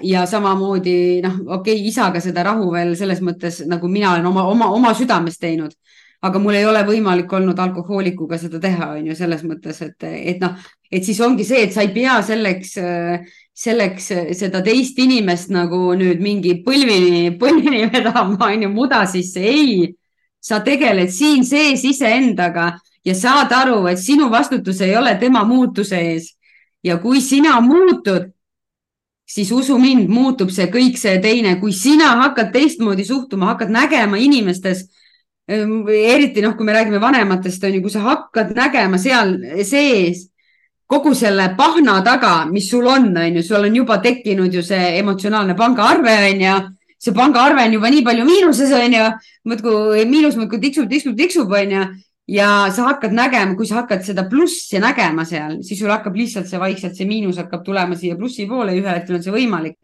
ja samamoodi noh, okei, isaga seda rahu veel selles mõttes, nagu mina olen oma südames teinud, aga mul ei ole võimalik olnud alkohoolikuga seda teha, on ju, selles mõttes, et noh, et siis ongi see, et sa ei pea selleks seda teist inimest nagu nüüd mingi põlvini vedama, on ju, muda sisse, ei, sa tegeled siin sees iseendaga ja saad aru, et sinu vastutus ei ole tema muutuse ees. Ja kui sina muutud, siis usu mind, muutub see kõik see teine. Kui sina hakkad teistmoodi suhtuma, hakkad nägema inimestes, eriti noh, kui me räägime vanematest, on ju, kui sa hakkad nägema seal sees kogu selle pahna taga, mis sul on ju, sul on juba tekkinud ju see emotsionaalne pangaarve, on ju, see pangaarve on juba nii palju miinuses, on ju, miinus muudkui tiksub, on ju. Ja sa hakkad nägema, kui sa hakkad seda plussi nägema seal, siis sul hakkab lihtsalt see vaikselt, see miinus hakkab tulema siia plussi poole, ühel hetkel on see võimalik.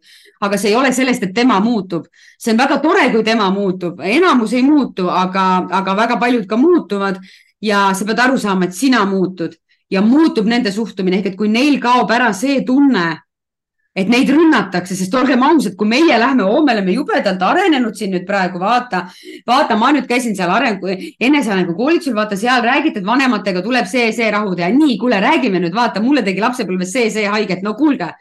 Aga see ei ole sellest, et tema muutub. See on väga tore, kui tema muutub. Enamus ei muutu, aga väga paljud ka muutuvad ja sa pead aru saama, et sina muutud ja muutub nende suhtumine. Ehk et kui neil kaob ära see tunne, et neid rünnatakse, sest olgem ausad, kui meie lähme, me oleme jubedalt arenenud siin nüüd praegu, vaata, ma nüüd käisin seal enesearengu koolitusel, vaata seal räägiti, et vanematega tuleb see rahu teha. Nii, kuule, räägime nüüd, vaata, mulle tegi lapsepõlves see haiget. No kuulge,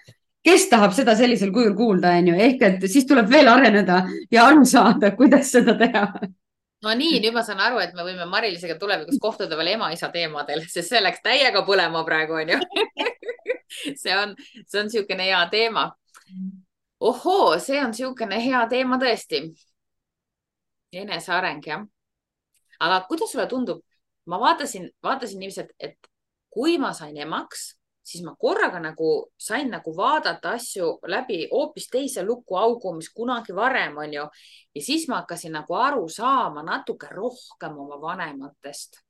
kes tahab seda sellisel kujul kuulda, on ju? Ehk et siis tuleb veel areneda ja aru saada, kuidas seda teha. No nii, nüüd ma saan aru, et me võime Mari-Liisega tulevikus kohtuda veel ema-isa teemadel, sest see läks täiega põlema praegu, on ju. see on niisugune hea teema. Ohoo, see on niisugune hea teema tõesti. Eneseareng, jah. Aga kuidas sulle tundub? Ma vaatasin niiviisi, et kui ma sain emaks, siis ma korraga sain vaadata asju läbi hoopis teise lukuaugu, mis kunagi varem, on ju. Ja siis ma hakkasin aru saama natuke rohkem oma vanematest,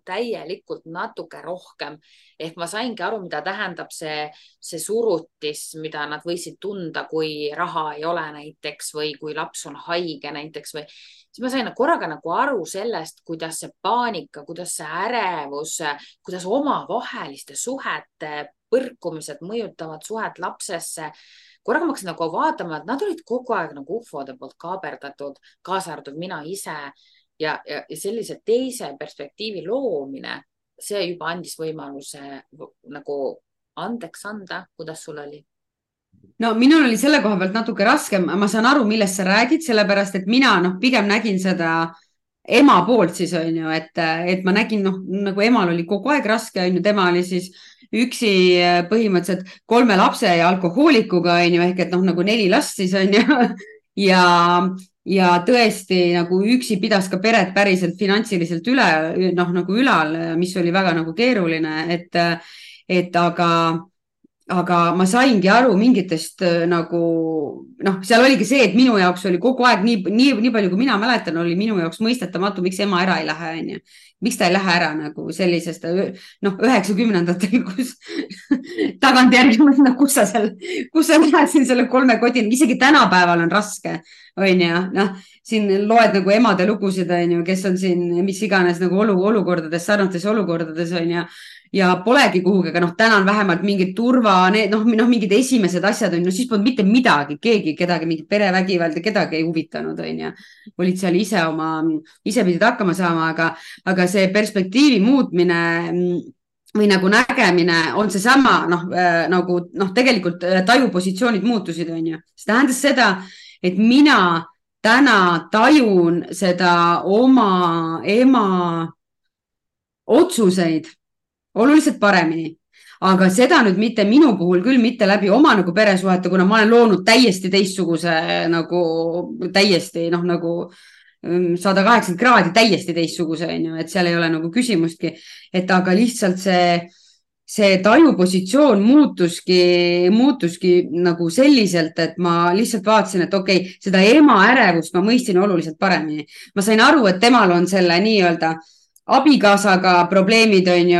täielikult natuke rohkem. Ehk ma saingi aru, mida tähendab see surutis, mida nad võisid tunda, kui raha ei ole näiteks või kui laps on haige näiteks või. Siis ma sain korraga aru sellest, kuidas see paanika, kuidas see ärevus, kuidas omavaheliste suhete põrkumised mõjutavad suhet lapsesse. Korraga ma hakkasin vaatama, et nad olid kogu aeg ufode poolt kaaberdatud, kaasa arvatud mina ise ja sellise teise perspektiivi loomine, see juba andis võimaluse andeks anda. Kuidas sul oli? No minul oli selle koha pealt natuke raskem, ma saan aru, millest sa räägid, sellepärast, et mina pigem nägin seda ema poolt siis on ju, et ma nägin, emal oli kogu aeg raske, on ju, tema oli siis üksi põhimõtteliselt 3 lapse ja alkohoolikuga on ju, ehk et 4 last siis on ju ja tõesti üksi pidas ka peret päriselt finantsiliselt ülal, mis oli väga keeruline, et aga ma saingi aru mingitest seal oligi see, et minu jaoks oli kogu aeg nii palju, kui mina mäletan, oli minu jaoks mõistetamatu, miks ema ära ei lähe, on ju. Miks ta ei lähe ära sellisest 90-ndatel, kus tagantjärgi kus sa lähed siin selle 3 kodini, isegi tänapäeval on raske, on ju, siin loed emade lugusid, on ju, kes on siin mis iganes olukordades, sarnates olukordades, on ju, ja polegi kuhugi, aga täna on vähemalt mingid mingid esimesed asjad on, siis polnud mitte midagi, kedagi, mingit perevägivald ja kedagi ei huvitanud, on ju. Olid seal ise pidid hakkama saama, aga see perspektiivi muutmine või nägemine on see sama, tegelikult tajupositsioonid muutusid, on ju. See tähendas seda, et mina täna tajun seda oma ema otsuseid oluliselt paremini, aga seda nüüd mitte minu puhul küll mitte läbi oma peresuhete, kuna ma olen loonud täiesti teistsuguse täiesti 180 kraadi täiesti teistsuguse, on ju, et seal ei ole küsimustki, et aga lihtsalt see tajupositsioon muutuski selliselt, et ma lihtsalt vaatasin, et okei, seda ema ärevust ma mõistsin oluliselt paremini. Ma sain aru, et temal on selle nii-öelda abikaasaga probleemid, on ju,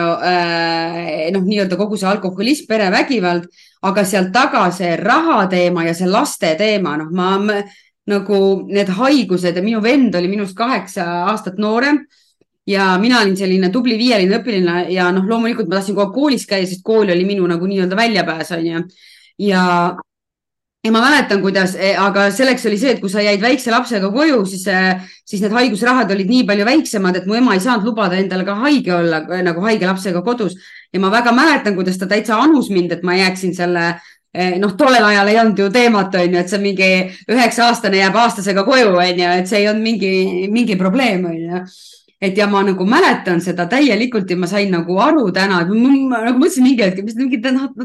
nii-öelda kogu see alkoholism, perevägivald, aga seal taga see raha teema ja see laste teema, need haigused ja minu vend oli minust 8 aastat noorem ja mina olin selline tubli 5-line õpiline ja loomulikult ma tahtsin kogu aeg koolis käia, sest kool oli minu nii-öelda väljapääs, on ju, ja ma mäletan, kuidas, aga selleks oli see, et kui sa jäid väikse lapsega koju, siis need haigusrahad olid nii palju väiksemad, et mu ema ei saanud lubada endale ka haige olla, haige lapsega kodus. Ja ma väga mäletan, kuidas ta täitsa anus mind, et ma jääksin selle, tollel ajal ei olnud ju teemat, on ju, et see mingi 9-aastane jääb aastasega koju, on ju, et see ei olnud mingi probleem, on ju. Et ja ma mäletan seda täielikult ja ma sain aru täna, et ma mõtlesin mingi hetk,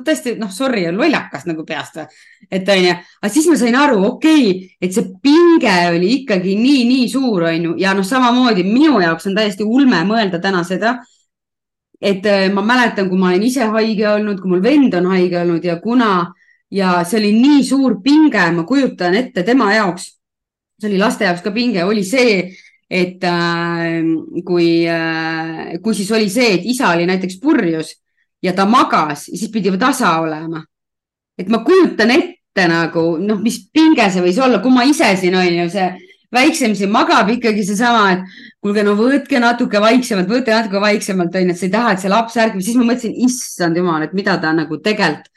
tõesti, sorry, lollakas peast. Et on ju, aga siis ma sain aru, okei, et see pinge oli ikkagi nii suur, on ju, ja samamoodi minu jaoks on täiesti ulme mõelda täna seda, et ma mäletan, kui ma olen ise haige olnud, kui mul vend on haige olnud ja see oli nii suur pinge, ma kujutan ette tema jaoks, see oli laste jaoks ka pinge, oli see, et kui siis oli see, et isa oli näiteks purjus ja ta magas, siis pidi tasa olema. Et ma kujutan ette mis pinge see võis olla, kui ma ise siin on ju, see väiksem siin magab ikkagi seesama, et kuulge, võtke natuke vaiksemalt, on ju, et sa ei taha, et see laps ärgib, siis ma mõtlesin, issand jumal, et mida ta tegelikult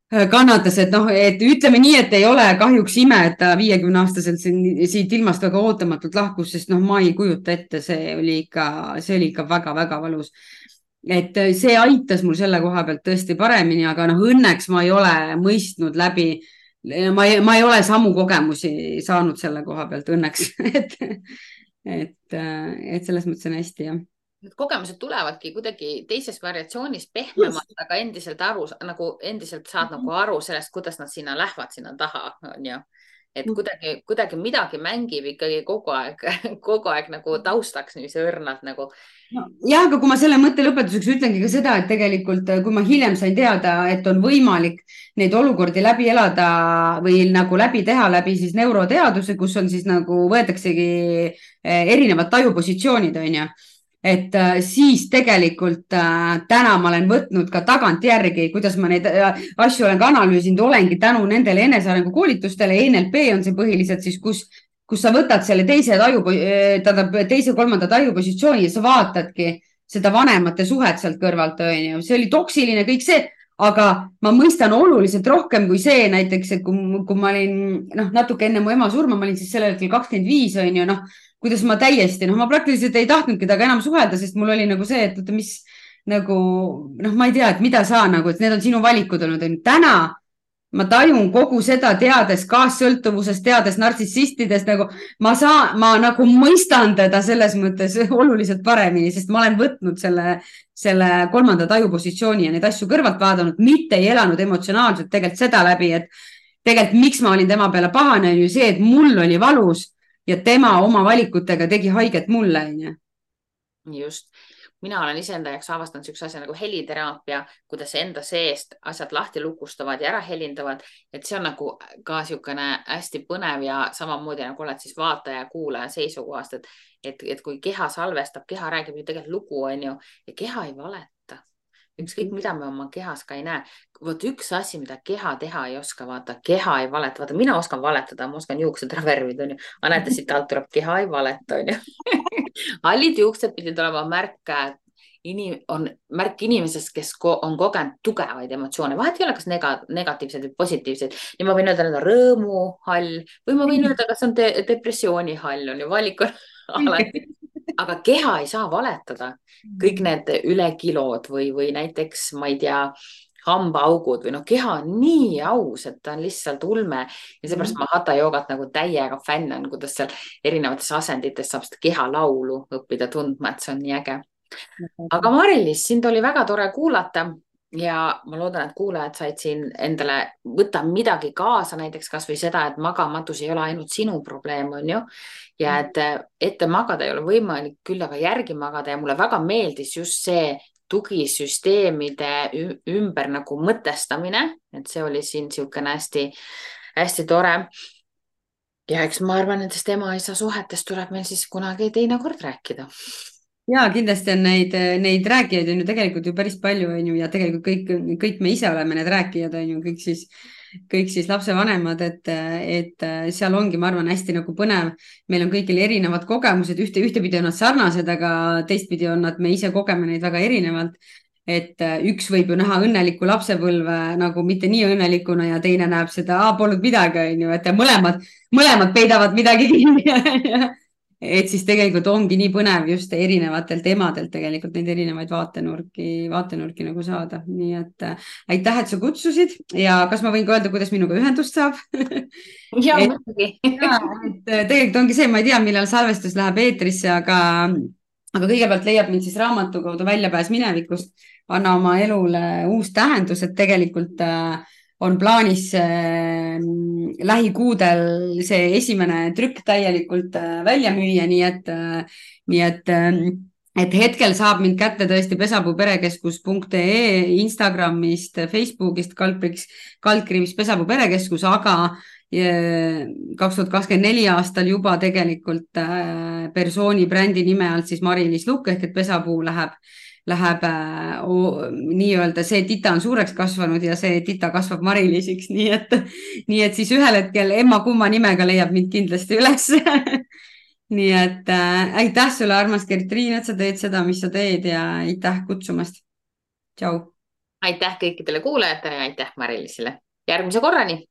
kannatas, et noh, et ütleme nii, et ei ole kahjuks ime, et ta 50-aastaselt siit ilmast väga ootamatult lahkus, sest noh, ma ei kujuta ette, see oli ikka väga-väga valus. et see aitas mul selle koha pealt tõesti paremini, aga noh, õnneks ma ei ole mõistnud läbi, ma ei ole samu kogemusi saanud selle koha pealt õnneks et selles mõttes on hästi, jah. Need kogemused tulevadki kuidagi teises variatsioonis pehmemalt, aga endiselt nagu endiselt saad nagu aru sellest, kuidas nad sinna lähevad, sinna taha, on ju. Et kuidagi midagi mängib ikkagi kogu aeg nagu taustaks niiviisi õrnalt nagu. Ja, aga kui ma selle mõtte lõpetuseks ütlengi ka seda, et tegelikult, kui ma hiljem sain teada, et on võimalik neid olukordi läbi elada või nagu läbi teha läbi siis neuroteaduse, kus on siis nagu võetaksegi erinevad tajupositsioonid, on ju. Et siis tegelikult täna ma olen võtnud ka tagantjärgi, kuidas ma neid asju olen ka analüüsinud, olengi tänu nendele enesearengu koolitustele. NLP on see põhiliselt siis, kus sa võtad selle teise-kolmanda tajupositsiooni ja sa vaatadki seda vanemate suhet sealt kõrvalt, on ju. See oli toksiline kõik see, aga ma mõistan oluliselt rohkem kui see näiteks, et kui ma olin natuke enne mu ema surma, ma olin siis sellel hetkel 25, on ju, kuidas ma täiesti, ma praktiliselt ei tahtnudki temaga enam suhelda, sest mul oli nagu see, et mis nagu, ma ei tea, et mida sa nagu, et need on sinu valikud olnud. Täna ma tajun kogu seda teades kaassõltuvusest, teades nartsissistidest, nagu ma nagu mõistan teda selles mõttes oluliselt paremini, sest ma olen võtnud selle kolmanda tajupositsiooni ja neid asju kõrvalt vaadanud, mitte ei elanud emotsionaalselt tegelikult seda läbi, et tegelikult miks ma olin tema peale pahane, on ju see, et mul oli valus ja tema oma valikutega tegi haiget mulle, on ju. Just. Mina olen iseenda jaoks avastanud sellise asja nagu heliteraapia, kuidas enda seest asjad lahti lukustavad ja ära helindavad. Et see on nagu ka niisugune hästi põnev ja samamoodi nagu oled siis vaataja ja kuulaja seisukohast, et kui keha salvestab, keha räägib ju tegelikult lugu, on ju, ja keha ei valeta. Ükskõik, mida me oma kehas ka ei näe. Vot üks asi, mida keha teha ei oska, vaata, keha ei valeta. Vaata, mina oskan valetada, ma oskan juuksed ära värvida, on ju. Aga näete, siit alt tuleb, keha ei valeta, on ju. Hallid juuksed pidid olema märk inimesest, kes on kogenud tugevaid emotsioone. Vahet ei ole, kas negatiivsed või positiivsed. Ja ma võin öelda, need on rõõmuhall või ma võin öelda, kas on depressioonihall, on ju, valik on alati. Aga keha ei saa valetada. Kõik need ülekilod või näiteks, ma ei tea, hambaaugud või keha on nii aus, et ta on lihtsalt ulme. Ja seepärast ma Hatha joogat nagu täiega fänn on, kuidas seal erinevates asendites saab seda keha laulu õppida tundma, et see on nii äge. Aga Mari-Liis, sind oli väga tore kuulata. Ja ma loodan, et kuulajad said siin endale võtta midagi kaasa, näiteks kas või seda, et magamatus ei ole ainult sinu probleem, on ju. Ja et ette magada ei ole võimalik, küll aga järgi magada. Ja mulle väga meeldis just see tugisüsteemide ümber nagu mõtestamine, et see oli siin niisugune hästi tore. Ja eks ma arvan, et nendest ema-isa suhetest tuleb meil siis kunagi teine kord rääkida. Ja kindlasti on neid rääkijaid on ju tegelikult ju päris palju, on ju, ja tegelikult kõik me ise oleme need rääkijad, on ju, kõik siis lapsevanemad, et seal ongi, ma arvan, hästi nagu põnev. Meil on kõigil erinevad kogemused, ühtepidi on nad sarnased, aga teistpidi on nad, me ise kogeme neid väga erinevalt. Et üks võib ju näha õnneliku lapsepõlve nagu mitte nii õnnelikuna ja teine näeb seda, polnud midagi, on ju, et mõlemad peidavad midagi kinni. Et siis tegelikult ongi nii põnev just erinevatelt emadelt tegelikult neid erinevaid vaatenurki nagu saada. Nii et aitäh, et sa kutsusid ja kas ma võin ka öelda, kuidas minuga ühendust saab? Ja, muidugi. Tegelikult ongi see, ma ei tea, millal salvestus läheb eetrisse, aga kõigepealt leiab mind siis raamatu kaudu Väljapääs minevikust. Anna oma elule uus tähendus, et tegelikult on plaanis lähikuudel see esimene trükk täielikult välja müüa, nii et hetkel saab mind kätte tõesti pesapuuperekeskus.ee, Instagramist, Facebookist, kaldkriips Pesapuu perekeskus, aga 2024 aastal juba tegelikult persooni brändi nime alt siis Mari-Liis Lukk ehk et Pesapuu läheb nii-öelda see tita on suureks kasvanud ja see tita kasvab Mari-Liisiks, nii et siis ühel hetkel emma-kumma nimega leiab mind kindlasti üles. Nii et aitäh sulle, armas Gertriin, et sa teed seda, mis sa teed ja aitäh kutsumast. Tšau. aitäh kõikidele kuulajatele ja aitäh Mari-Liisile. Järgmise korrani.